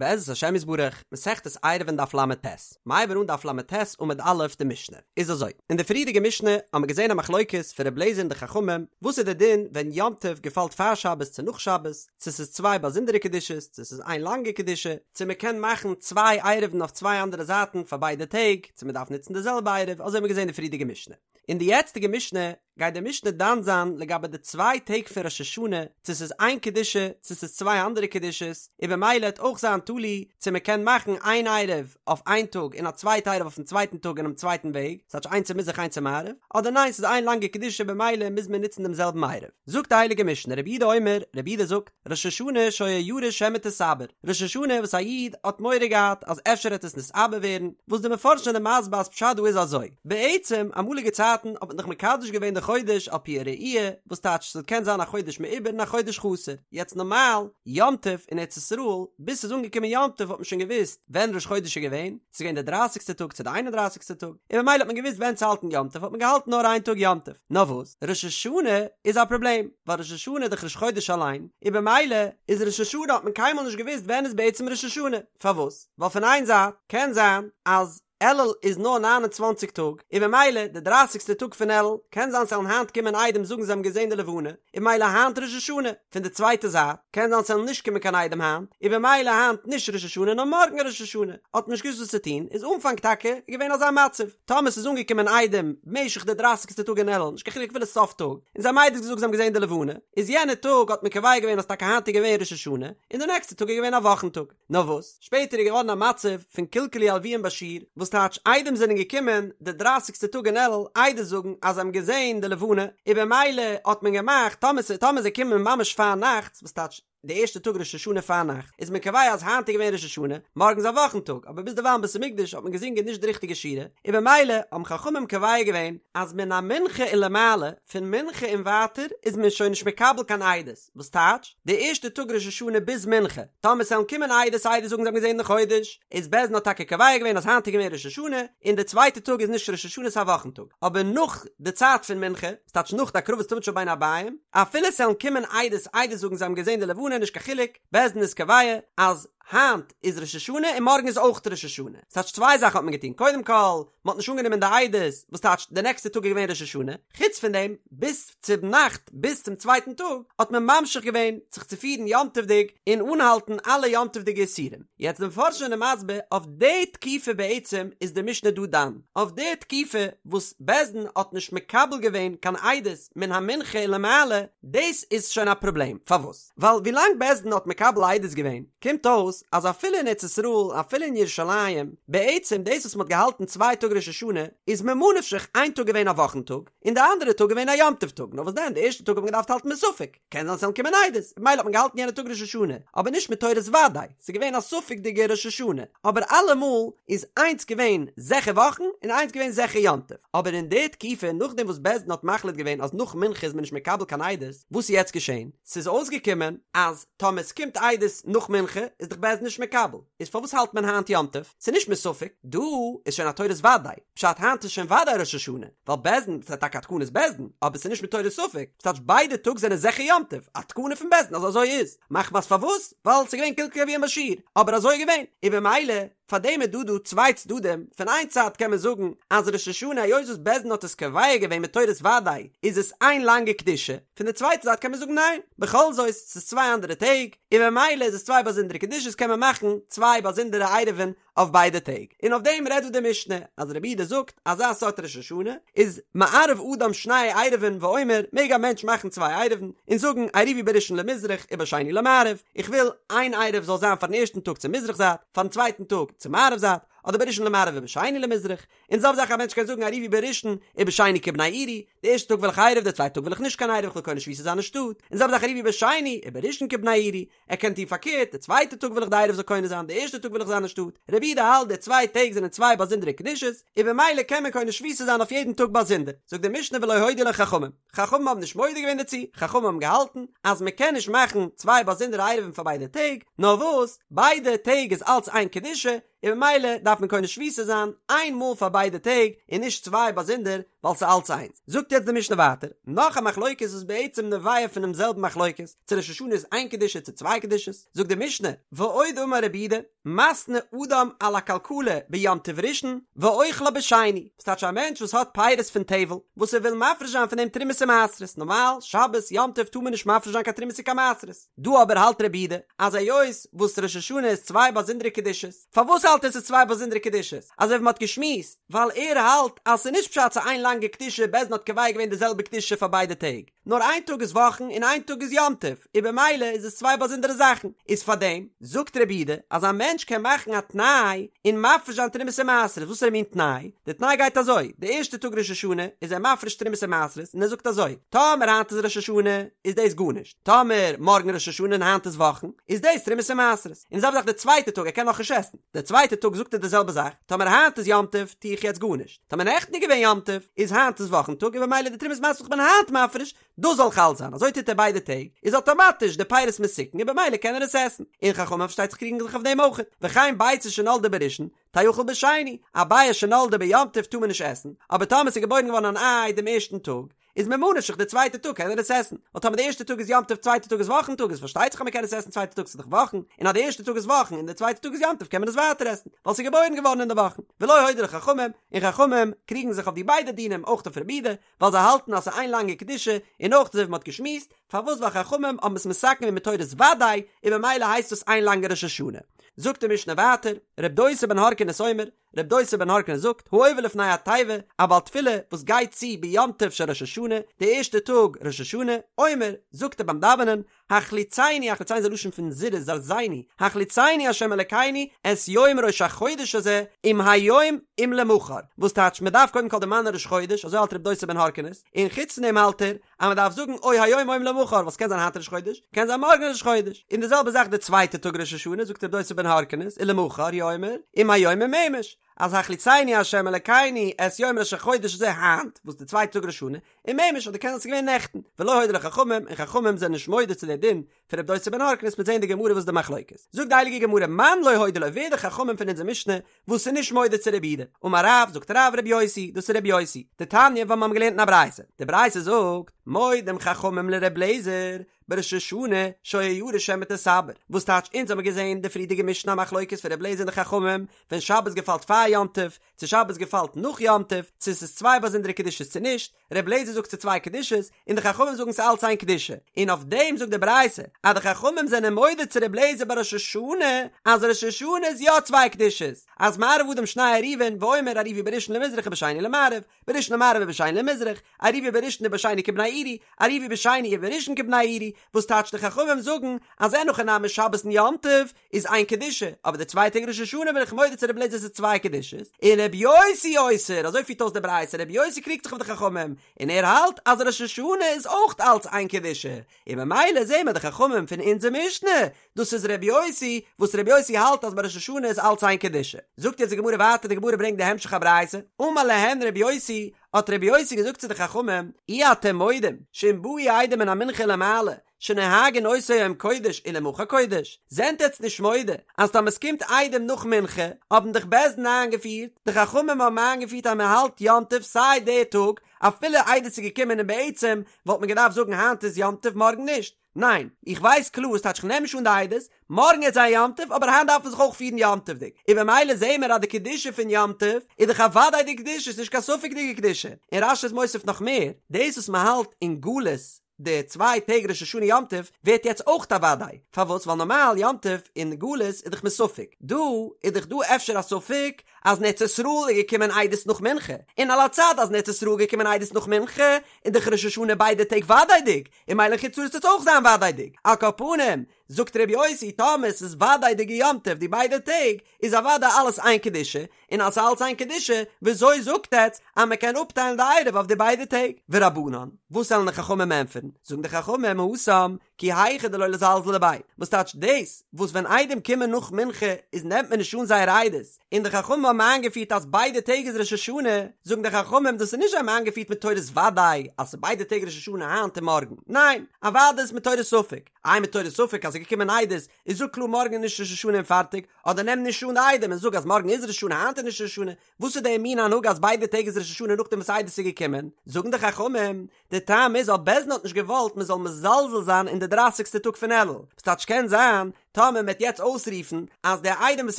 בעזרת השם יתברך, מסכת עירובין דף ל"ט, מ'הייבן אן דף ל"ט עמוד א' די משנה. איז אזוי, אין די פריערדיגע משנה האבן מיר געזען א מחלוקת פון ר' לעזער און די חכמים, וואס איז די דין ווען יום טוב געפאלט פאר שבת צו נאך שבת, צו ס'איז צוויי באזונדערע קדושות, צו ס'איז איין לאנגע קדושה, צו מ'קען מאכן צוויי עירובין אויף צוויי אנדערע זייטן פאר ביידע טעג, צו מ'דארף נוצן די זעלבע עירוב, אזוי האבן מיר געזען אין די פריערדיגע משנה. אין די יעצטיגע משנה גייט די משנה דן זיין לגבי די צוויי טעג פון ראש השנה, צו ס'איז איין קדושה צו ס'איז צוויי אנדערע קדושות, און במילא העט אויך זיין תלוי צו מ'קען מאכן איין עירוב אויף איין טאג און א צווייטע עירוב אויפן צווייטן טאג אינעם צווייטן וועג, ס'טייטש איינס צו מזרח איינס צו מערב, אדער ניין ס'איז איין לאנגע קדושה במילא מוז מען נוצן דעם זעלבן עירוב. זאגט די הייליגע משנה רבי יהודה אומר, רבי יהודה זאגט, ראש השנה שהיה ירא שמא תתעבר, ראש השנה וואס א איד האט מורא געהאט אז אפשר העט עס נתעבר ווערן, וואס די מפרשים זענען מסביר אז פשט דא איז אזוי, בעצם אמאליגע צייטן האט מען דאך מקדש געווען די חודש על פי הראי', וואס טייטש ס'קען זיין א חודש מעובר און א חודש חסר, יעצט נארמאל יום טוב אין ארץ ישראל, ביז ס'איז אנגעקומען יום טוב האט מען שוין געוואוסט ווען ראש חודש איז געווען, ס'איז געווען די דרייסיגסטע טאג צו די איין און דרייסיגסטע טאג, און במילא האט מען געוואוסט ווען צו האלטן יום טוב האט מען געהאלטן נאר איין טאג יום טוב. נאר וואס, ראש השנה איז א פראבלעם, ווייל ראש השנה איז דאך ראש חודש אליין, און במילא איז ראש השנה האט מען קיינמאל נישט געוואוסט ווען איז בעצם ראש השנה, פארוואס? ווייל פון איין זייט קען זיין אז אלול איז נאר 29 טאג, און במילא די דרייסיגסטע טאג פון אלול, קען זיין ס'וועלן היינט קומען עדים זאגן זיי האבן געזען די לבנה, און במילא היינט ראש השנה, פון די צווייטע זייט, קען זיין ס'וועלן נישט קומען קיין עדים היינט, און במילא היינט נישט ראש השנה נאר מארגן ראש השנה, האט מען נישט געוואוסט וואס צו טון, איז אנפאנג טאקע געווען אזא מצב, טאמער ס'איז אנגעקומען עדים במשך די דרייסיגסטע טאג אין אלול, נישט קיין חילוק אפילו סוף טאג, און זיי האבן עדות געזאגט זיי האבן געזען די לבנה, איז יענע טאג האט מען קובע געווען אז טאקע היינט איז געווען ראש השנה, און די נעקסטע טאג איז געווען א וואכן טאג. נאר וואס, שפעטער איז געווארן א מצב פון קלקלו הלוים בשיר, וואס טייטש עדים זענען געקומען די דרייסיגסטע טאג אין אלול עדות זאגן אז זיי האבן געזען די לבנה, און במילא האט מען געמאכט טאמער ס' טאמער זיי קומען ממש פארנאכטס, וואס טייטש די ערשטע טאג ראש השנה פארנאכט, איז מען קובע אז היינט איז געווען ראש השנה, מארגן איז א וואכן טאג, אבער ביז דערווייל אין בית המקדש האט מען געזינגען נישט די ריכטיגע שירה, און במילא האבן חכמים קובע געווען אז מן המנחה ולמעלה, פון מנחה און ווייטער, איז מען שוין נישט מקבל קיין עדות. וואס טייטש, די ערשטע טאג ראש השנה ביז מנחה, טאמער ס'וועלן קומען עדות עדות זאגן זיי האבן געזען די חודש, איז בית דין האט טאקע קובע געווען אז היינט איז געווען ראש השנה, און די צווייטע טאג איז נישט ראש השנה ס'איז א וואכן טאג, אבער נאך די צייט פון מנחה, וואס טייטש נאך די הקרבת תמיד של בין הערביים, אפילו ס'וועלן קומען עדות עדות זאגן זיי האבן געזען די לבנה נישט קיין חילוק, בית דין איז קובע אז היינט איז ראש השנה און מארגן איז אויך ראש השנה, ס'טייטש צוויי זאכן האט מען געטון, קודם כל, מ'האט נישט אנגענומען די עדות, וואס טייטש די נעקסטע טאג איז געווען ראש השנה, חוץ פון דעם, ביז צום נאכט, ביז צום צווייטן טאג, האט מען ממשיך געווען זיך צו פירן יום טוב'דיג און אנהאלטן אלע יום טוב'דיגע איסורים. יעצט די מפרשים זענען מסביר, אויף די תקופה בעצם איז די משנה דא דן, אויף די תקופה וואס בית דין האט נישט מקבל געווען קיין עדות מן המנחה ולמעלה, דאס איז שוין א פראבלעם, פארוואס? ווייל ווילאנג בית דין האט מקבל עדות געווען, קומט אויס אז אפילו אין ארץ ישראל, אפילו אין ירושלים, בעצם דאס וואס מ'האט געהאלטן צוויי טאג ראש השנה, איז ממה נפשך איין טאג געווען א וואכן טאג, און די אנדערע טאג געווען א יום טוב טאג, נאר וואס דען די ערשטע טאג האט מען געדארפט האלטן מספק, קען זיין ס'וועלן קומען עדות, ממילא האט מען געהאלטן יענע טאג ראש השנה, אבער נישט מתורת ודאי, ס'איז געווען א ספק'דיגע ראש השנה, אבער אלעמאל איז איינס געווען זיכער וואכן און איינס געווען זיכער יום טוב, אבער אין די תקופה נאכדעם וואס בית דין האט מחליט געווען אז נאך מנחה איז מען נישט מקבל קיין עדות, וואס איז יעצט געשען? ס'איז אויסגעקומען אז טאמער ס'קומט עדות נאך מנחה איז דאך בית דין נישט מקבל, איז פארוואס האלט מען היינט יום טוב? ס'איז נישט מספק, דא איז שוין א תורת ודאי, פשט היינט איז שוין ודאי ראש השנה, ווייל בית דין, ס'איז טאקע א תקנת בית דין, אבער ס'איז נישט מתורת ספק, ס'טייטש ביידע טאג זענען זיכער יום טוב, א תקנה פון בית דין אז אזוי איז, מחמת פארוואס? ווייל ס'איז געווען קלקלו הלוים בשיר, אבער אזוי איז געווען, און במילא פאר דעם איז דא דא צוויי צדדים, פון איין צד קען מען זאגן אז ראש השנה היות וואס בית דין האט עס קובע געווען מתורת ודאי איז עס איין לאנגע קדושה, פון די צווייטע זייט קען מען זאגן ניין, בכל זאת ס'איז צוויי אנדערע טעג, און במילא איז עס צוויי באזונדערע קדושות קען מען מאכן צוויי באזונדערע עירובין אויף ביידע טעג, און אויף דעם רעדט דא די משנה אז רבי יהודה זאגט אזא סארט ראש השנה איז מערב אדם שני עירובין ואומר מעג א מענטש מאכן צוויי עירובין און זאגן עירובי בראשון למזרח ובשני למערב, איך וויל איין עירוב זאל זיין פארן ערשטן טאג צו מזרח זייט, פארן צווייטן טאג צו מערב זייט, אדער בראשון למערב ובשני למזרח, און זעלבע זאך א מענטש קען זאגן עירובי בראשון ובשני כבני עירי, די ערשטע טאג וויל איך עירוב די צווייטע טאג וויל איך נישט קיין עירוב איך וויל קונה שביתה זיין אין שטאט, און זעלבע זאך עירובי בשני ובראשון כבני עירי, ער קען טון פארקערט, די צווייטע טאג וויל איך די עירוב זאל קונה זיין, די ערשטע טאג וויל איך זיין אין שטאט, רבי יהודה האלט די צוויי טעג זענען צוויי באזונדערע קדושות, און במילא קען מען קונה שביתה זיין אויף יעדן טאג באזונדער, זאגט די משנה ולא הודו לו חכמים. חכמים האבן נישט מודה געווען דערצו, חכמים האבן געהאלטן אז מען קען נישט מאכן צוויי באזונדערע עירובין פאר ביידע טעג, נאר וואס, ביידע טעג איז אלץ איין קדושה, און ממילא דארף מען קונה שביתה זיין איין מאל פאר ביידע טעג און נישט צוויי באזונדער ווייל ס'איז אלץ איינס. זאגט יעצט די משנה ווייטער נאך א מחלוקת וואס בעצם נובע פונעם זעלבן מחלוקת, צו ראש השנה איז איין קדושה צו צוויי קדושות, זאגט די משנה, ועוד אמר רבי יהודה, מתנה אדם על הכלכלה ביום טוב ראשון ואוכלה בשני, וואס טייטש א מענטש וואס האט פירות פון טבל וואס ער וויל מפריש זיין פון דעם תרומות און מעשרות, נארמאל שבת יום טוב טאר מען נישט מפריש זיין קיין תרומות און קיין מעשרות, דא אבער האלט רבי יהודה אז היות וואס ראש השנה איז צוויי באזונדערע קדושות, פארוואס האלט ער ס'איז צוויי באזונדערע קדושות? אזוי ווי מ'האט געשמועסט, ווייל ער האלט אז ס'איז נישט פשט ס'איז איין לאנגע קדושה בית דין האט קובע געווען די זעלבע קדושה פאר ביידע טעג, נאר איין טאג איז וואכן און איין טאג איז יום טוב, און במילא איז עס צוויי באזונדערע זאכן, איז פארדעם זאגט רבי יהודה אז א מענטש קען מאכן א תנאי און מפריש זיין תרומות און מעשרות, וואסערע מין תנאי? די תנאי גייט אזוי, די ערשטע טאג ראש השנה איז ער מפריש תרומות און מעשרות און ער זאגט אזוי, טאמער היינט איז ראש השנה איז דאס גארנישט, טאמער מארגן ראש השנה און היינט איז וואכן איז דאס תרומות און מעשרות, און די זעלבע זאך די צווייטע טאג ער קען נאכנישט עסן, די צווייטע טאג זאגט ער די זעלבע זאך, טאמער היינט איז יום טוב טו איך יעצט גארנישט. טאמער נעכטן איז געווען יום טוב, איז היינט איז וואכן טאג און במילא די תרומות מעשרות וואס כ'בין היינט מפריש, דאס זאל חל זיין, אזוי טוט ער ביידע טעג, איז אטאמאטיש די פירות מתוקן און במילא קען ער עס עסן, און חכמים פארשטייט זיך קריגן זיך אויף דעם אויכעט, וכן ביצה שנולדה בראשון, תאכל בשני, א ביעא שנולדה ביום טוב טאר מען נישט עסן, אבער טאמער ס'איז געבוירן געווארן אן איי דעם ערשטן טאג, איז ממה נפשך די צווייטע טאג קען ער עס עסן, ווייל טאמער די ערשטע טאג איז יום טוב צווייטע טאג איז וואכן טאג איז פארשטייט זיך אז מען קען עס עסן צווייטע טאג ס'איז דאך וואכן, און אז די ערשטע טאג איז וואכן און די צווייטע טאג איז יום טוב קען מען עס ווייטער עסן, ווייל ס'איז געבוירן געווארן אין די וואכן. ולא הודו לו חכמים, און חכמים קריגן זיך אויף די ביידע דינים אויך אויף רבי יהודה, ווייל זיי האלטן אז ס'איז איין לאנגע קדושה, און אויך אזוי ווי מ'האט געשמועסט, פארוואס ווייל חכמים האבן עס מתקן געווען מתורת ודאי, און ממילא הייסט עס איין לאנגע ראש השנה. זאגט די משנה ווייטער, ר' דוסא בן הרכינס אומר, ר' דוסא בן הרכינס זאגט, העובר לפני התיבה, א בעל תפילה וואס גייט צו ביום טוב של ראש השנה, די ערשטע טאג ראש השנה, אומר, זאגט ער ביים דאווענען, החליצנו, החליצנו איז א לשון פון זירוז, זרזנו, החליצנו ה' אלקינו את יום ראש החודש הזה, אם היום אם למחר, וואס טייטש מען דארף קודם כל דערמאנען ראש חודש, אזוי האלט ר' דוסא בן הרכינס, און חוץ פון דעם האלט ער, אז מען דארף זאגן או היום או למחר ווייל ס'קען זיין היינט ראש חודש, קען זיין מארגן ראש חודש, און די זעלבע זאך די צווייטע טאג ראש השנה זאגט ר' דוסא בן הרכינס ולמחר הוא אומר אם היום אם אמש, אז החליצנו ה' אלקינו את יום ראש החודש הזה היינט, וואס די צווייטע טאג ראש השנה, אם אמש אדער קען זיין ס'איז געווען נעכטן, ולא הודו לו חכמים, און חכמים זענען נישט מודה צו די דין פון ר' דוסא בן הרכינס מ'עט זעהן אין די גמרא וואס איז די מחלוקת. זאגט די הייליגע גמרא מאן לא הודו לו ווער די חכמים פון אונזער משנה וואס איז נישט מודה צו רבי יהודה? אמר רב, זאגט רב רבי יוסי, דאס איז רבי יוסי, דתניא ווייל מיר האבן געלערנט אין א ברייתא, די ברייתא זאגט, מודים חכמים לר' אליעזר, בראש השנה שהיה ירא שמא תתעבר, וואס טייטש אונז האבן געזעהן די פריערדיגע משנה א מחלוקת פון ר' אליעזר און די חכמים ווען שבת געפאלט פאר יום טוב, צו שבת געפאלט נאך יום טוב, צו ס'איז צוויי באזונדערע קדושות צו נישט, ר' אליעזר זאגט ס'איז צוויי קדושות, און די חכמים זאגן ס'איז אלץ איין קדושה, און אויף דעם זאגט די ברייתא אז די חכמים זענען מודה צו ר' אליעזר ביי ראש השנה אז ראש השנה איז יא צוויי קדושות, אז מערב אדם שני עירובין ואומר עירבו בראשון למזרח ובשני למערב, בראשון למערב ובשני למזרח, עירבו בראשון ובשני כבני עירי, עירבו בשני ובראשון כבני עירי, וואס טייטש די חכמים זאגן אז אין הכי נמי שבת און יום טוב איז איין קדושה, אבער די צוויי טעג ראש השנה בין איך מודה צו רבי אליעזר ס'איז צוויי קדושות, און רבי יוסי אוסר, אזוי פירט אויס די ברייתא, רבי יוסי קריגט זיך אויף די חכמים, און ער האלט אז ראש השנה איז אויך אלץ איין קדושה, און ממילא זעהן מיר די חכמים פון אונזער משנה, דאס איז רבי יוסי, וואס רבי יוסי האלט אז ביי ראש השנה איז אלץ איין קדושה. זאגט יעצט די גמרא ווייטער, די גמרא ברענגט די המשך הברייתא, אמר להן רבי יוסי, האט רבי יוסי געזאגט צו די חכמים, אי אתם מודים, שאם באו עדים מן המנחה ולמעלה, שנוהגין אותו היום קודש ולמחר קודש, זענט עטץ נישט מודה אז טאמער ס'קומט עדים נאך מנחה האבן דאך בית דין איינגעפירט, די חכמים האבן איינגעפירט אז מען האלט יום טוב סיי די טאג אפילו עדות איז געקומען און בעצם וואלט מען געדארפט זאגן היינט איז יום טוב מארגן נישט, ניין איך ווייס קלאר ס'טייטש כ'נעם נישט אן די עדות, מארגן איז א יום טוב אבער היינט דארף מען זיך אויך פירן יום טוב'דיג, און במילא זעהן מיר אז די קדושה פון יום טוב איז דאך אוודאי די קדושה ס'נישט קיין ספק'דיגע קדושה, און רש"י איז מוסיף נאך מער, דאס וואס מען האלט אין גלות די צוויי טעג ראש השנה יום טוב ווערט יעצט אויך א וודאי, פארוואס? ווייל נארמאל יום טוב אין גלות איז דאך מסופק, דא איז דאך דא אפשר א ספק אז אין ארץ ישראל איז געקומען עדות נאך מנחה, און על הצד אז אין ארץ ישראל איז געקומען עדות נאך מנחה איז דאך ראש השנה ביידע טעג וודאי'דיג, און ממילא אין חוץ לארץ וועט עס אויך זיין וודאי'דיג, על כל פנים זאגט ר' יוסי טאמער ס'איז וודאי'דיגע יום טוב די ביידע טעג איז אוודאי אלעס איין קדושה, און אז ס'איז אלץ איין קדושה, וויאזוי זאגט עטץ אז מ'קען אפטיילן די עירוב אויף די ביידע טעג? ורבנן, וואס וועלן די חכמים ענטפערן? זאגן די חכמים, התם, כי היכי דלא לזלזולי ביה, וואס טייטש דאס וואס ווען עדים קומען נאך מנחה איז נעמט מען נישט אן זייער עדות, און די חכמים האבן איינגעפירט אז ביידע טעג איז ראש השנה, זאגן די חכמים דאס איז נישט זיי האבן איינגעפירט מתורת ודאי אז ס'איז ביידע טעג ראש השנה היינט און מארגן, ניין, אוודאי איז מתורת ספק, איי מתורת ספק אז ס'איז געקומען עדות איז זאג קלאר מארגן איז נישט ראש השנה און פארטיג, אדער נעם נישט אן די עדים און זאג אז מארגן איז ראש השנה היינט איז נישט ראש השנה, וואס איז די מין הנהגה אז ביידע טעג איז ראש השנה נאכדעם וואס עדות איז געקומען? זאגן די חכמים, די טעם איז ווייל בית דין האט נישט געוואלט מען זאל מזלזל זיין אין די דרייסיגסטע טאג פון אלול, וואס טייטש קען זיין טאמער מען וועט יעצט אויסרופן אז די עדים וואס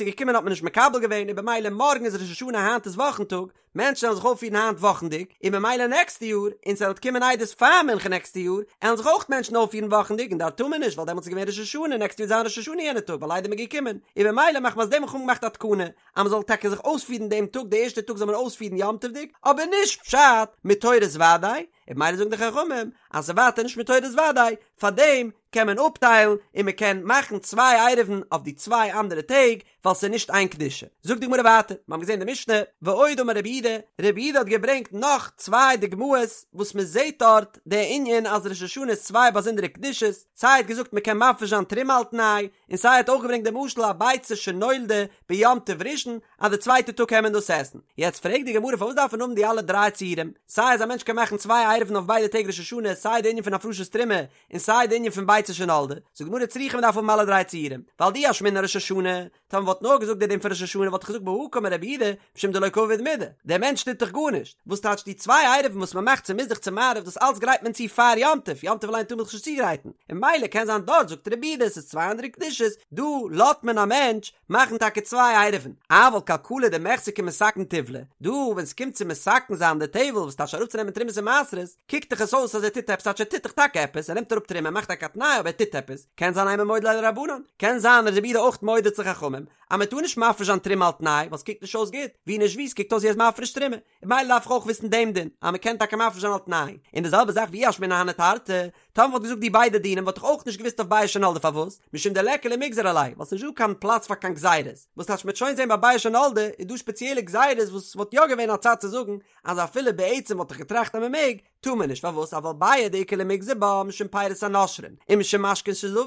איז געקומען האט מען נישט מקבל געווען און במילא מארגן איז ראש השנה היינט איז וואכן טאג, מענטשן וועלן זיך אויפפירן היינט וואכנדיג, און במילא נעקסטע יאר, און ס'וועט קומען עדות פאר מנחה נעקסטע יאר, עלן זיך אויך מענטשן אויפפירן וואכנדיג און דארט טאר מען נישט ווייל דעמאלטס איז געווען ראש השנה נעקסטע יאר וועט זיין ראש השנה יענע טאג ווייל עדים איז געקומען, און במילא מחמת דעם האט חכמים געמאכט א תקנה אז מ'זאל טאקע זיך אויספירן דעם טאג די ערשטע טאג זאל מען אויספירן יום טוב'דיג, אבער נישט פשט מתורת ודאי, און במילא זאגן די חכמים אז ס'איז ווייטער נישט מתורת ודאי, פארדעם קען מען אפטיילן און מ'קען מאכן צוויי עירובין אויף די צוויי אנדערע טעג, ווייל ס'איז נישט איין קדושה. זאגט די גמרא ווייטער, מיר האבן געזען די משנה, ועוד אמר רבי יהודה, רבי יהודה האט געברענגט נאך צוויי דוגמאות וואס מען זעט דארט די ענין אז ראש השנה איז צוויי באזונדערע קדושות, סיי ער האט געזאגט מען קען מפריש זיין תרומה על תנאי, און סיי ער האט אויך געברענגט די משל א ביצה שנולדה ביום טוב ראשון אז די צווייטע טאג קען מען דאס עסן. יעצט פרעגט די גמרא פארוואס דארף מען האבן די אלע דריי ציורים, סיי אז א מענטש קען מאכן צוויי עירובין אויף ביידע טעג ראש השנה, סיי די ענין פון הפרשת תרומה, און סיי די ענין פון ביצה שנולדה, זאגט די גמרא צריכא מ'דארף האבן אלע דריי ציורים, ווייל דאי אשמעינן ראש השנה, טאמער מ'וואלט נאר געזאגט די דין פון ראש השנה וואלט איך געזאגט בהא קאמר רבי יהודה, משום דלא קא עביד מידי, דער מענטש טוט דאך גארנישט, וואס טייטש די צוויי עירובין וואס מ'מאכט צו מזרח צו מערב דאס אלץ גרייט מען צו פאר יום טוב, יום טוב אליין טאר מען זיך נישט צוגרייטן, און ממילא קען זיין דארט זאגט רבי יהודה עס איז צוויי אנדערע קדושות, דא לאזט מען א מענטש מאכן טאקע צוויי עירובין, אבל כלכלה דמיחזי כמתקן טיבלא, דא ווען ס'קומט צו מתקן זיין די טבל וואס טייטש אראפצונעמען תרומות און מעשרות, קוקט דאך עס אויס אז ער טוט עפעס, טייטש ער טוט דאך טאקע עפעס, ער נעמט אראפ תרומה, ער מאכט טאקע א תנאי אבער ער טוט עפעס, קען זיין אימא מודה ליה לרבנן, קען זיין אז רבי יהודה אויך מודה צו חכמים, אז מען טאר נישט מפריש זיין תרומה על תנאי, ווייל ס'קוקט נישט אויס גוט, ווי נישט ווי ס'קוקט אויס ווי ער איז מפריש תרומה, און ממילא דארף איך אויך וויסן דעם דין, אז מען קען טאקע מפריש זיין על תנאי, און די זעלבע זאך ואי אשמעינן הני תרתי, טאמער מ'וואלט געזאגט די ביידע דינים וואלט איך אויך נישט געוואוסט אויף ביעא שנולדה פארוואס, משום דליכא למיגזר עליה, ווייל ס'נישט דא קיין פלאץ פאר קיין גזירות, וואס טייטש מ'וועט שוין זען ביי ביעא שנולדה איז דא שפעציעלע גזירות וואס וואלט יא געווען א צד צו זאגן אז אפילו בעצם וואלט איך געטראכט אז מ'מעג, טאר מען נישט, פארוואס אבל ביעא דאיכא למיגזר בה משום פירות הנושרין ומשום משקין שזבו,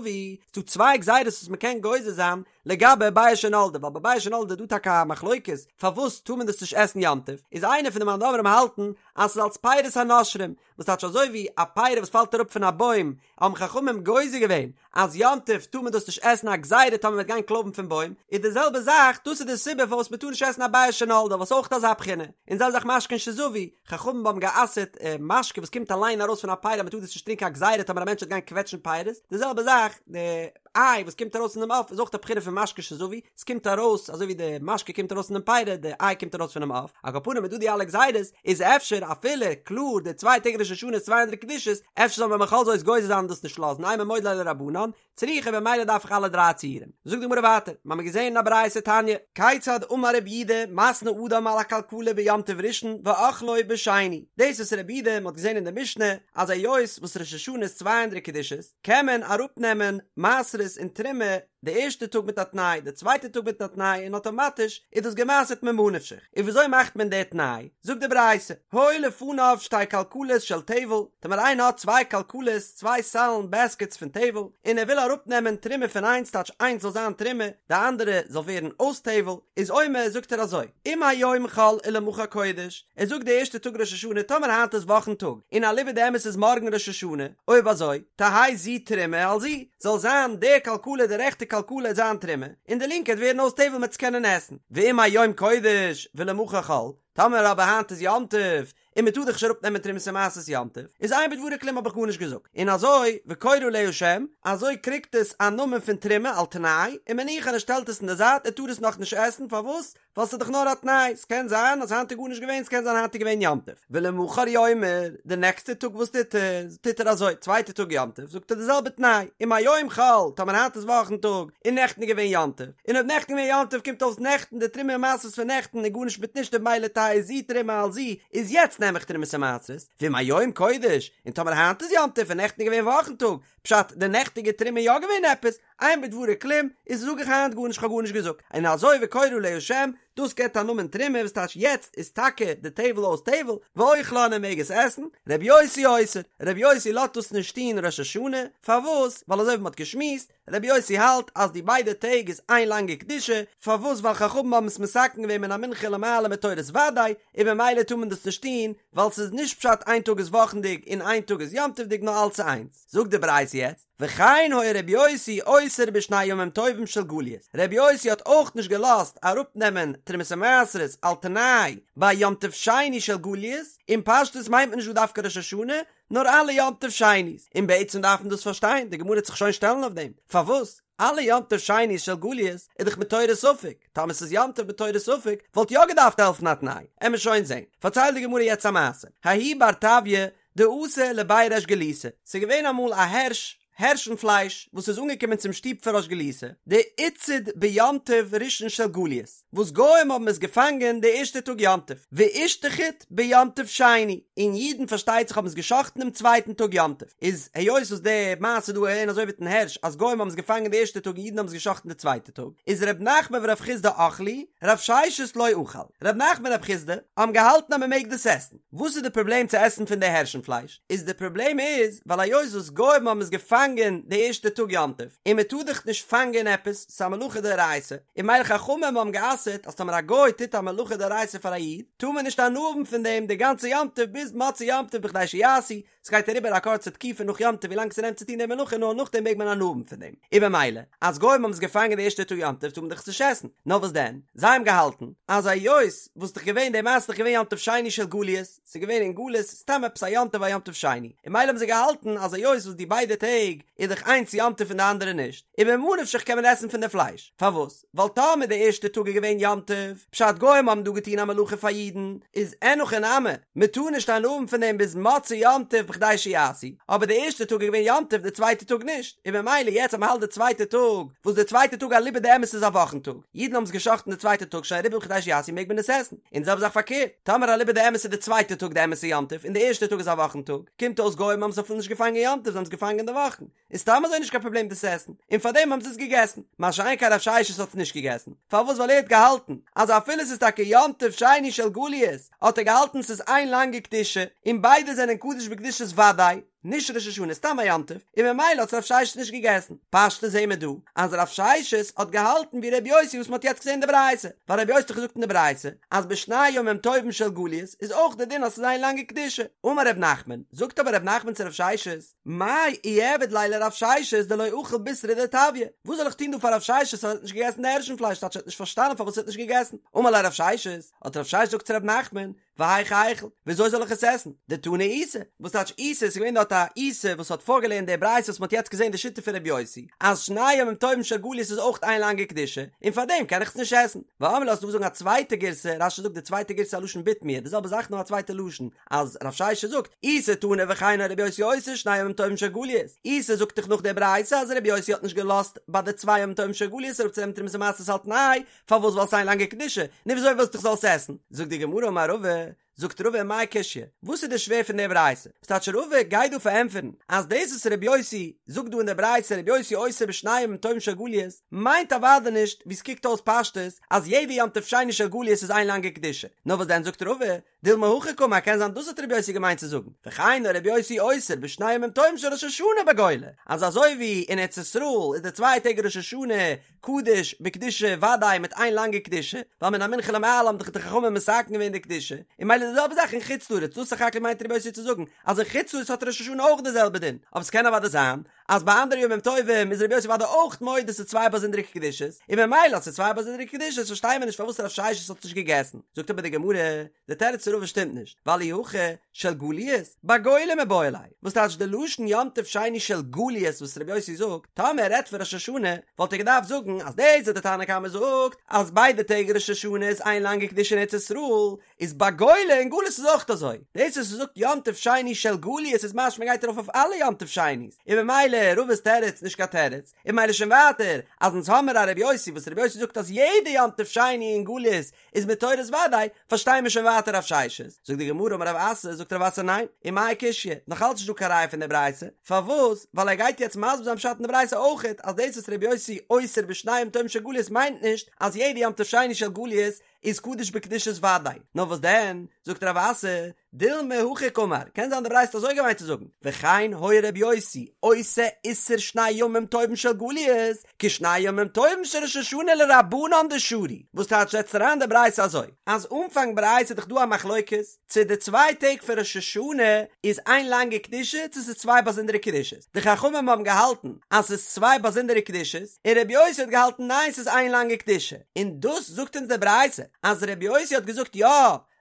ס'דא צוויי גזירות וואס מ'קען גוזר זיין לגבי ביעא שנולדה, ווייל ביי ביעא שנולדה איז דא טאקע א מחלוקת פארוואס טאר מען דאס נישט עסן יום טוב, איז איינער פון די מאן דאמרים האלטן אז ס'איז אלס פירות הנושרים, וואס טייטש אזוי ווי א פרי וואס פאלט אראפ פון א בוים, האבן חכמים גוזר געווען אז יום טוב טאר מען דאס נישט עסן א גזירה טאמער מ'וועט גיין קלויבן פון בוים, איז די זעלבע זאך, דאס איז די סיבה פארוואס מ'טאר נישט עסן א ביעא שנולדה וואס אויך אזא בחינה, און זעלבע זאך משקין שזבו, חכמים האבן גע'אסר'ט משקה וואס קומט אליין ארויס פון א פרי אז מ'טאר דאס נישט טרינקען א גזירה טאמער א מענטש וועט גיין קוועטשן פירות, די זעלבע זאך די איי וואס קומט ארויס פונעם עוף איז אויך א בחינה פון משקה שזבו, עס קומט ארויס אזוי ווי די משקה קומט ארויס פונעם פרי, די איי קומט ארויס פונעם עוף, על כל פנים איז דא די אלע גזירות, איז אפשר אפילו קלאר די צוויי טעג ראש השנה איז צוויי אנדערע קדושות, אפשר זאל מען בכל זאת גוזר זיין און דאס נישט לאזן, אימא מודה ליה לרבנן, צריכא במילא דארף איך אלע דריי ציורים. זאגט די גמרא ווייטער, מ'האמיר געזען אין א ברייתא תניא, כיצד אמר רבי יהודה מתנה אדם על הכלכלה ביום טוב ראשון ואוכלו בשני, דאס וואס רבי יהודה מ'האט געזען אין די משנה אז היות וואס ראש השנה איז צוויי אנדערע קדושות, קען מען אראפנעמען מעשרות און תרומה די ערשטע טאג מיט א תנאי, די צווייטע טאג מיט א תנאי און אטאמאטיש איז דאס גע'מעשר'ט ממה נפשך. און וויאזוי מאכט מען די תנאי? זאגט די ברייתא, היו לפניו שתי כלכלות של טבל, טאמער איינער האט צוויי כלכלות, צוויי סלן, בעסקעטס, פון טבל, און ער וויל אראפנעמען תרומה פון איינס טייטש איינס זאל זיין תרומה, די אנדערע זאל ווערן אויס טבל, איז אומר זאגט ער אזוי, אם היום חול ולמחר קודש, ער זאגט די ערשטע טאג ראש השנה טאמער היינט איז וואכן טאג, און אליבא דאמת איז מארגן ראש השנה, אויב אזוי, תהא זו תרומה על זו, זאל זיין די כלכלה די רעכטע כלכלה זיין תרומה, און די לינקע וועט ווערן אויס טבל מ'עט עס קענען עסן. ואם היום קודש ולמחר חול, טאמער אבער היינט איז יום טוב, און מ'טאר דאך נישט אראפ נעמען תרומות ומעשרות יום טוב, איז אין בדברי כלום האב איך גארנישט געזאגט, און אזוי וקורא עליה שם, אזוי קריגט עס א נאמען פון תרומה על תנאי, ומניחה און ער שטעלט עס אין די זייט ער טאר עס נאכנישט עסן, פארוואס? ווייל ס'איז דאך נאר א תנאי, ס'קען זיין אז היינט איז גארנישט געווען, ס'קען זיין היינט איז געווען יום טוב. ולמחר יאמר, די נעקסטע טאג וואס טוט ער? טוט ער אזוי, צווייטע טאג יום טוב, זאגט ער די זעלבע תנאי, אם היום חול, טאמער היינט איז וואכן טאג, און נעכטן איז געווען יום טוב, און אויב נעכטן איז געווען יום טוב קומט אויס נעכטן די תרומה ומעשרות פון נעכטן איז גארנישט מיט נישט און ממילא תהא זו תרומה על זו, איז יעצט נעם איך תרומות ומעשרות, ואם היום קודש, און טאמער היינט איז יום טוב און נעכטן איז געווען וואכן טאג, פשט, די נעכטיגע תרומה איז יא געווען עפעס? אין בדברי כלום, איז זאג איך היינט גארנישט כ'האב גארנישט געזאגט, און אזוי וקורא עליה שם, דאס געבט א נאמען תרומה וואס טייטש יעצט איז טאקע די טבל אויס טבל, ואוכלה און ער מעג עס עסן, רבי יוסי אוסר, רבי יוסי לאזט דאס נישט טון ראש השנה, פארוואס? ווייל אזוי ווי מ'האט געשמועסט, רבי יוסי האלט אז די ביידע טעג איז איין לאנגע קדושה, פארוואס ווייל חכמים האבן עס מתקן געווען מן המנחה למעלה מתורת ודאי, און במילא טאר מען דאס נישט טון, ווייל ס'איז נישט פשט איין טאג איז וואכנדיג און איין טאג איז יום טוב'דיג נאר אלץ איז איינס. זאגט די ברייתא יעצט, וכן היה רבי יוסי אוסר בשני ימים טובים של גליות, רבי יוסי האט אויך נישט געלאזט אראפנעמען תרומות ומעשרות על תנאי ביי יום טוב שני של גליות, און פשטות מיינט מען נישט דא דווקא ראש השנה, נאר אלע יום טוב שני'ס, און בעצם דארף מען דאס פארשטיין, די גמרא וועט זיך שוין שטעלן אויף דעם, פארוואס אלע יום טוב שני'ס של גליות איז דאך מתורת ספק, טאמער ס'איז יום טוב מתורת ספק וואלט יא געדארפט העלפן א תנאי, עמער שוין זען, פארציילט די גמרא יעצט א מעשה, ההוא בר טביא דאתא לבי ריש גלותא, ס'איז געווען אמאל א הערש, הערשן פלייש, וואס איז אנגעקומען צום שטוב פון ריש גלותא, דאיתצד ביום טוב ראשון של גליות, וואס גוים האבן עס געפאנגען די ערשטע טאג יום טוב, ואישתחיט ביום טוב שני, און אידן פארשטייט זיך האבן עס גע'שחט'ן דעם צווייטן טאג יום טוב, איז היות וואס די מעשה דא איז אזוי מיטן הערש אז גוים האבן עס געפאנגען די ערשטע טאג און אידן האבן עס גע'שחט'ן די צווייטע טאג, איז ר' נחמן ורב חסדא אכלי, רב ששת לא אכל, ר' נחמן און רב חסדא האבן געהאלטן אז מען מעג דאס עסן. וואס איז די פראבלעם צו עסן פון די הערשן פלייש? איז די פראבלעם איז ווייל היות וואס גוים האבן עס געפאנגען די ערשטע טאג יום טוב, און מען טאר דאך נישט פאנגען עפעס, ס'איז א מלאכה דאורייתא, און ממילא חכמים האבן גע'אסר'ט אז טאמער א גוי טוט א מלאכה דאורייתא פאר א איד, טאר מען נישט הנאה האבן פון דעם די גאנצע יום טוב ביז מוצאי יום טוב בכדי שיעשו, ס'גייט אריבער א קורצע תקופה נאך יום טוב ווילאנג ס'נעמט צו טון די מלאכה נאר נאכדעם מעג מען הנאה האבן פון דעם, און במילא אז גוים האבן עס געפאנגען די ערשטע טאג יום טוב טאר מען דאך עס נישט עסן, נאר וואס דען? זיי האבן געהאלטן אז היות וואס דאך געווען די מעשה איז דאך געווען יום טוב שני של גליות, ס'איז געווען אין גלות סתם עפעס א יום טוב א יום טוב שני, און ממילא האבן זיי געהאלטן אז היות וואס די ביידע טעג איז דאך איינס יום טוב און די אנדערע נישט, און ממה נפשך קען מען עסן פון די פלייש, פארוואס? ווייל טאמער די ערשטע טאג איז געווען יום טוב, פשט גוים האבן דא געטון א מלאכה פאר אידן, איז אין הכי נמי, מען טאר נישט הנאה האבן פון דעם ביז מוצאי יום טוב בכדי שיעשו, אבער די ערשטע טאג איז געווען יום טוב די צווייטע טאג נישט, און ממילא יעצט אז מען האלט די צווייטע טאג, וואס די צווייטע טאג אליבא דאמת איז א וואכן טאג, אידן האבן עס גע'שחט'ן די צווייטע טאג שוין אריבער בכדי שיעשו מעג מען עס עסן, און די זעלבע זאך פארקערט, טאמער אליבא דאמת איז די צווייטע טאג די אמת'ע יום טוב און די ערשטע טאג איז א וואכן טאג, קומט אויס גוים האבן עס אפילו נישט געפאנגען יום טוב זיי האבן עס געפאנגען אין די וואכן. איז סתם אזוי נישט קיין פראבלעם דאס עסן, און פארדעם האבן זיי עס געגעסן, מה שאין כן רב ששת האט עס נישט געגעסן, פארוואס ווייל ער האט געהאלטן אז אפילו עס איז טאקע יום טוב שני של גליות, האט ער געהאלטן ס'איז איין לאנגע קדושה, און ביידע זענען קדוש בקדושת ודאי, נישט ראש השנה סתם א יום טוב, און ממילא האט עס רב ששת נישט געגעסן. פשטות זעהן מיר דא אז רב ששת האט געהאלטן ווי ר' יוסי וואס מ'האט יעצט געזעהן אין די ברייתא, ווייל ר' יוסי האט דאך געזאגט אין די ברייתא אז בשני ימים טובים של גליות איז אויך די דין אז ס'איז איין לאנגע קדושה. אמר ר' נחמן, זאגט אבער ר' נחמן צו רב ששת, מאי איעביד ליה לרב ששת דלא אכיל בישרא דטביא, וואס זאל איך טון דא פאר רב ששת אז ער האט נישט געגעסן די הערשן פלייש טייטש ער האט נישט פארשטאנען פארוואס ער האט נישט געגעסן, אמר ליה רב ששת, האט רב ששת געזאגט צו רב נחמן, והיאך איכול, וויאזוי זאל איך עס עסן, דתני איסי, וואס טייטש איסי, עס איז געווען דארט א איסי וואס האט פארגעלערנט די ברייתא וואס מען האט יעצט געזען די שיטה פון רבי יוסי, אז שני ימים טובים של גליות איז אויך איין לאנגע קדושה, און פארדעם קען איך עס נישט עסן. ואמרי לה ס'איז דא וואס זאגן א צווייטע גירסא, רש"י זאגט די צווייטע גירסא א לשון בתמיה, די זעלבע זאך נאר א צווייטע לשון, אז רב ששת זאגט, איסי תני וכן היה רבי יוסי אוסר שני ימים טובים של גליות, איסי זאגט דאך נאך די ברייתא אז רבי יוסי האט נישט געלאזט ביי די צוויי ימים טובים של גליות אראפצונעמען תרומות ומעשרות על תנאי, פארוואס ווייל ס'איין לאנגע קדושה, נו וויאזוי ווילסטו איך זאל עס עסן? זאגט די גמרא אמר רבא, זאגט רבא מאי קשיא, וואס איז די שווער פון די ברייתא? וואס טייטש רבא גייט דא פארענטפערן אז דאס וואס רבי יוסי זאגט דא אין די ברייתא רבי יוסי אוסר בשני ימים טובים של גליות מיינט אוודאי נישט ווי ס'קוקט אויס פשטות אז יעדע יום טוב שני של גליות איז איין לאנגע קדושה, נאר וואס דען זאגט רבא דילמא הכי קאמר קען זיין דאס האט רבי יוסי געמיינט צו זאגן, וכן היה רבי יוסי אוסר בשני ימים טובים של ראש השנה בגולה, אז אזוי ווי אין ארץ ישראל איז די צוויי טעג ראש השנה קדוש בקדושה וודאי מיט איין לאנגע קדושה, ווייל מן המנחה למעלה האבן דאך די חכמים מתקן געווען די קדושה, און ממילא די זעלבע זאך אין חוץ לארץ, דאס סך הכל מיינט רבי יוסי צו זאגן אז אין חוץ לארץ האט ראש השנה אויך די זעלבע דין, אבער ס'קען אוודאי זיין אז ביי אנדערע ימים טובים איז רבי יוסי אוודאי אויך מודה ס'איז צוויי באזונדערע קדושות, און ממילא אז ס'איז צוויי באזונדערע קדושות פארשטייען מיר נישט פארוואס רב ששת האט נישט געגעסן. זאגט אבער די גמרא, די תירוץ פון רבא שטימט נישט, ווייל אי הכי של גליות, בגולה מיבעי ליה, וואס טייטש די לשון יום טוב שני של גליות וואס רבי יוסי זאגט, טאמער ער רעדט פון ראש השנה, וואלט ער געדארפט זאגן אז דאס וואס די תנא קמא זאגט אז ביידע טעג ראש השנה איז איין לאנגע קדושה אין ארץ ישראל, איז בגולה אין גלות איז אויך אזוי, דאס וואס ער זאגט יום טוב שני של גליות איז משמע גייט ארויף אויף אלע יום טוב שני'ס, און ממילא. ממילא רבא'ס תירוץ נישט קיין תירוץ, און ממילא שוין ווייטער אז אונז האמיר א רבי יוסי וואס רבי יוסי זאגט אז יעדע יום טוב שני אין גליות איז מתורת ודאי, פארשטייען מיר שוין ווייטער רב ששת. זאגט די גמרא אמר רב אסי, זאגט רב אסי ניין, ומאי קשיא, נאך אלץ נישט דא קיין ראיה פון די ברייתא, פארוואס? ווייל ער גייט יעצט מסביר זיין פשט אין די ברייתא אויכעט אז דאס וואס רבי יוסי אוסר בשני ימים טובים של גליות מיינט נישט אז יעדע יום טוב שני של גליות איז קדוש בקדושת ודאי, נאר וואס דען, זאגט רב אסי, דילמא הכי קאמר, קען זיין די ברייתא האט אזוי געמיינט צו זאגן, וכן היה ר' יוסי עושה איסור שני ימים טובים של גליות, כשני ימים טובים של ראש השנה לרבנן דשרו, וואס טייטש זעצט אריין די ברייתא אזוי, אז אנפאנג ברייתא איז דאך דא א מחלוקת, צו די צוויי טעג פון ראש השנה איז איין לאנגע קדושה צו ס'איז צוויי באזונדערע קדושות, די חכמים האבן געהאלטן אז ס'איז צוויי באזונדערע קדושות, און ר' יוסי האט געהאלטן ניין ס'איז איין לאנגע קדושה, און דאס זאגט אונז די ברייתא אז ר' יוסי האט געזאגט יא,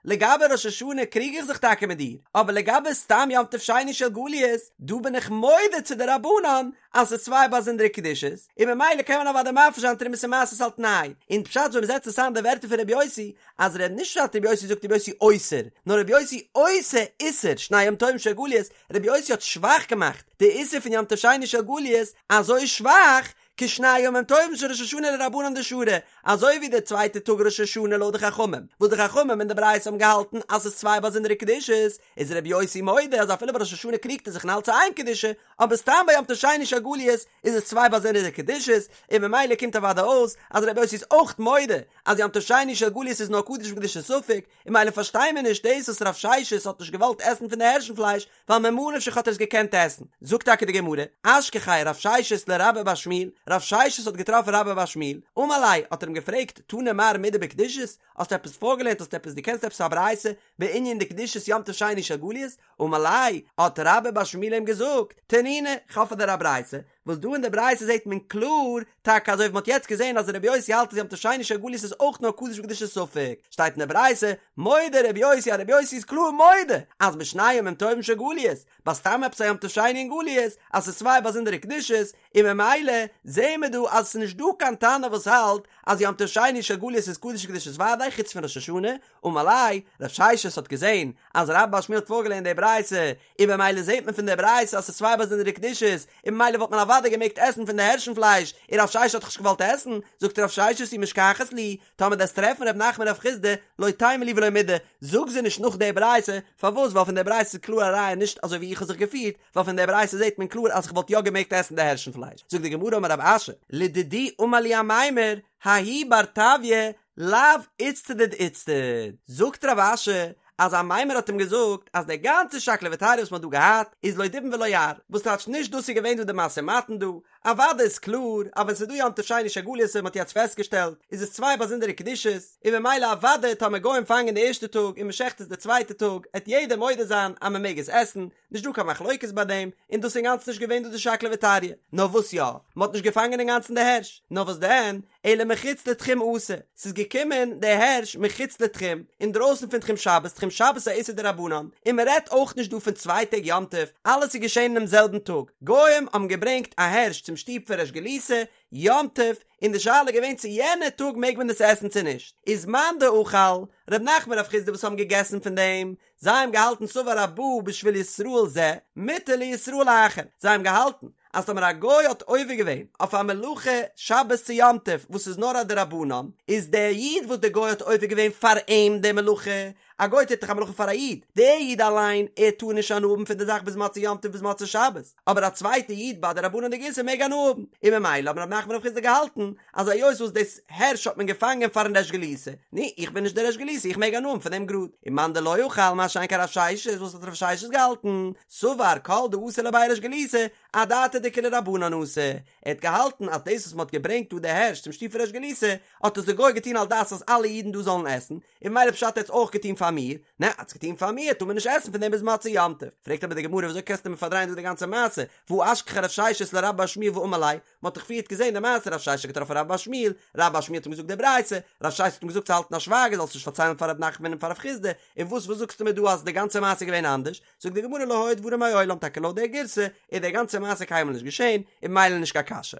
לגבי ראש השנה קריג איך זיך טאקע מיט דיר, אבער לגבי סתם יום טוב שני של גליות, דא בין איך מודה צו די רבנן אז ס'איז צוויי באזונדערע קדושות, און ממילא קען מען אוודאי מפריש זיין תרומות ומעשרות על תנאי, און פשט ווען מ'זעצט עס איין די ווערטער פון רבי יוסי, אז ר' נישט פשט רבי יוסי זאגט רבי יוסי אוסר, נאר רבי יוסי עושה איסור שני ימים טובים של גליות, רבי יוסי האט שוואך געמאכט די איסור פון יום טוב שני של גליות אזוי שוואך, כשני ימים טובים של ראש השנה לרבנן דשרו, אזוי ווי די צווייטע טאג ראש השנה לויט די חכמים, וואס די חכמים אין די ברייתא האבן געהאלטן אז ס'איז צוויי באזונדערע קדושות, איז רבי יוסי מודה אז אפילו ביי ראש השנה קריגט ער זיך און האלט ס'איז איין קדושה, אבער סתם ביי יום טוב שני של גליות איז עס צוויי באזונדערע קדושות, און ממילא קומט אוודאי אויס אז רבי יוסי איז אויך מודה אז יום טוב שני של גליות איז נאר קדוש בקדושת ספק, און ממילא פארשטייען מיר נישט דאס וואס רב ששת האט נישט געוואלט עסן פון די הערשן פלייש, ווייל ממה נפשך האט ער עס געקענט עסן. זאגט טאקע די גמרא, אשכחיה רב ששת לרבה בר שמואל, רב ששת האט געטראפן רבה בר שמואל, אמר ליה, האט ער אים געפרעגט, תני מר מידי בקדושות, האסט עפעס פארגעלערנט, האסט עפעס, דו קענסט עפעס א ברייתא בענין די קדושת יום טוב שני של גליות? אמר ליה, האט רבה בר שמואל אים געזאגט, תנינא, כ'האב פאר דיר א ברייתא, וואס דא אין די ברייתא זעט מען קלאר, טאקע אזוי ווי מ'האט יעצט געזען אז רבי יוסי האלט אז יום טוב שני של גליות איז אויך נאר קדוש בקדושת ספק, שטייט אין די ברייתא, מודה רבי יוסי אז רבי יוסי איז קלאר מודה אז בשני ימים טובים של גליות, ביי סתם עפעס א יום טוב שני אין גליות, אז ס'איז צוויי באזונדערע קדושות, און ממילא זעהן מיר דא אז ס'איז נישט דא קיין תנא וואס האלט אז יום טוב שני של גליות איז קדוש בקדושת ודאי חוץ פון ראש השנה, אמר ליה, רב ששת האט געזעהן אז רבה בר שמואל האט פארגעלערנט די ברייתא, און במילא זעהט מען פון די ברייתא אז ס'איז צוויי באזונדערע קדושות, און במילא וואלט מען אוודאי געמעגט עסן פון די הערשן פלייש, און רב ששת האט דאך נישט געוואלט עסן, זאגט רב ששת אי משכחת להו, טאמער דו וועסט טרעפן ר' נחמן רב חסדא, לא תימא להו ולא מידי, זאג זיי נישט נאך די ברייתא, פארוואס ווייל פון די ברייתא איז קלאר א ראיה נישט אזוי ווי איך האב זיך געפירט, ווייל פון די ברייתא זעהט מען קלאר אז איך וואלט יא געמעגט עסן די הערשן פלייש, זאגט די גמרא אמר רב אשי, לדידי אמר לי אמימר, ההוא בר טביא לאו איצטדיד איצטדיד, זאגט רב אשי אז אמימר האט אים געזאגט אז די גאנצע שקלא וטריא וואס מען האט דא געהאט איז לא דובים ולא יער, וואס טייטש נישט דאס איז געווען דא די משא ומתן דא, אוודאי איז קלאר אז ווען ס'איז דא יום טוב שני של גליות ווי מ'האט יעצט פעסטגעשטעלט איז עס צוויי באזונדערע קדושות, און ממילא אוודאי טאמער גוים פאנגען די ערשטע טאג און מ'שעכט עס די צווייטע טאג עט יעדער מודה זיין אז מ'מעג עס עסן, נישט דא קיין מחלוקת ביי דעם, און דאס איז אינגאנצן נישט געווען דא די שקלא וטריא, נאר וואס יא, מ'האט נישט געפאנגען אינגאנצן די הערש, נאר וואס דען, אלא מחוץ לתחום אתא, ס'איז געקומען די הערש מחוץ לתחום, אינדרויסן פון תחום שבת, תחום שבת איז א איסור דרבנן, און מ'רעדט אויך נישט דא פון צוויי טעג יום טוב, אלעס איז געשען אינעם זעלבן טאג, גוים האבן געברענגט א הערש צום שטוב פון ריש גלותא, יום טוב, און די שאלה איז געווען צו יענע טאג מעג מען עס עסן צו נישט, איז מאן דאכל, ר' נחמן רב חסדא וואס האבן געגעסן פון דעם, זיי האבן געהאלטן סבר הבא בשביל ישראל זה, מותר לישראל אחר, זיי האבן געהאלטן אז טאמער א גוי האט עובר געווען אויף א מלאכה שבת צו יום טוב וואס איז נאר א דרבנן, איז דער איד וואס דער גוי האט עובר געווען פאר אים די מלאכה, א גוי טוט דאך א מלאכה פאר א איד, דער איד אליין ער טאר נישט הנאה האבן פון די זאך ביז מוצאי יום טוב ביז מוצאי שבת, אבער א צווייטע איד ביי א דרבנן'דיגע איסור מעג הנאה האבן, און ממילא האבן רב נחמן רב חסדא געהאלטן אז היות וואס דאס הערש האט מען געפאנגען פארן ריש גלותא, נו, איך בין נישט דער ריש גלותא, איך מעג הנאה האבן פון דעם גראד. ומאן דלא אכל, מה שאין כן רב ששת, וואס האט רב ששת געהאלטן? סבר כל דאתא לבי ריש גלותא, אדעתא דכולהו רבנן אתא. ער האט געהאלטן אז דאס וואס מען האט געברענגט דא די הערש צום שטוב פון ריש גלותא, האט עס דער גוי געטון על דעת אז אלע אידן דא זאלן עסן, און ממילא פשט ער האט עס אויך געטון פאר מיר, נע, האט עס געטון פאר מיר, טאר מען נישט עסן פון דעם ביז מוצאי יום טוב. פרעגט אבער די גמרא, וויאזוי קענסטו מיר פארדרייען דא די גאנצע מעשה, והא אשכחיה רב ששת לרבה בר שמואל ואמר ליה, מען האט דאך פריערט געזען די מעשה רב ששת האט געטראפן רבה בר שמואל, רבה בר שמואל האט אים געזאגט די ברייתא, רב ששת האט אים געזאגט צו האלטן א שווייגער זאלסט נישט פארציילן פאר ר' נחמן און פאר רב חסדא, און וואס וואס זאגסטו מיר דא אז די גאנצע מעשה איז געווען אנדערש, זאגט די גמרא לא היו דברים מעולם טאקע לויט די גירסא איז די גאנצע מעשה קיינמאל נישט געשען, און ממילא נישט קיין קשיא.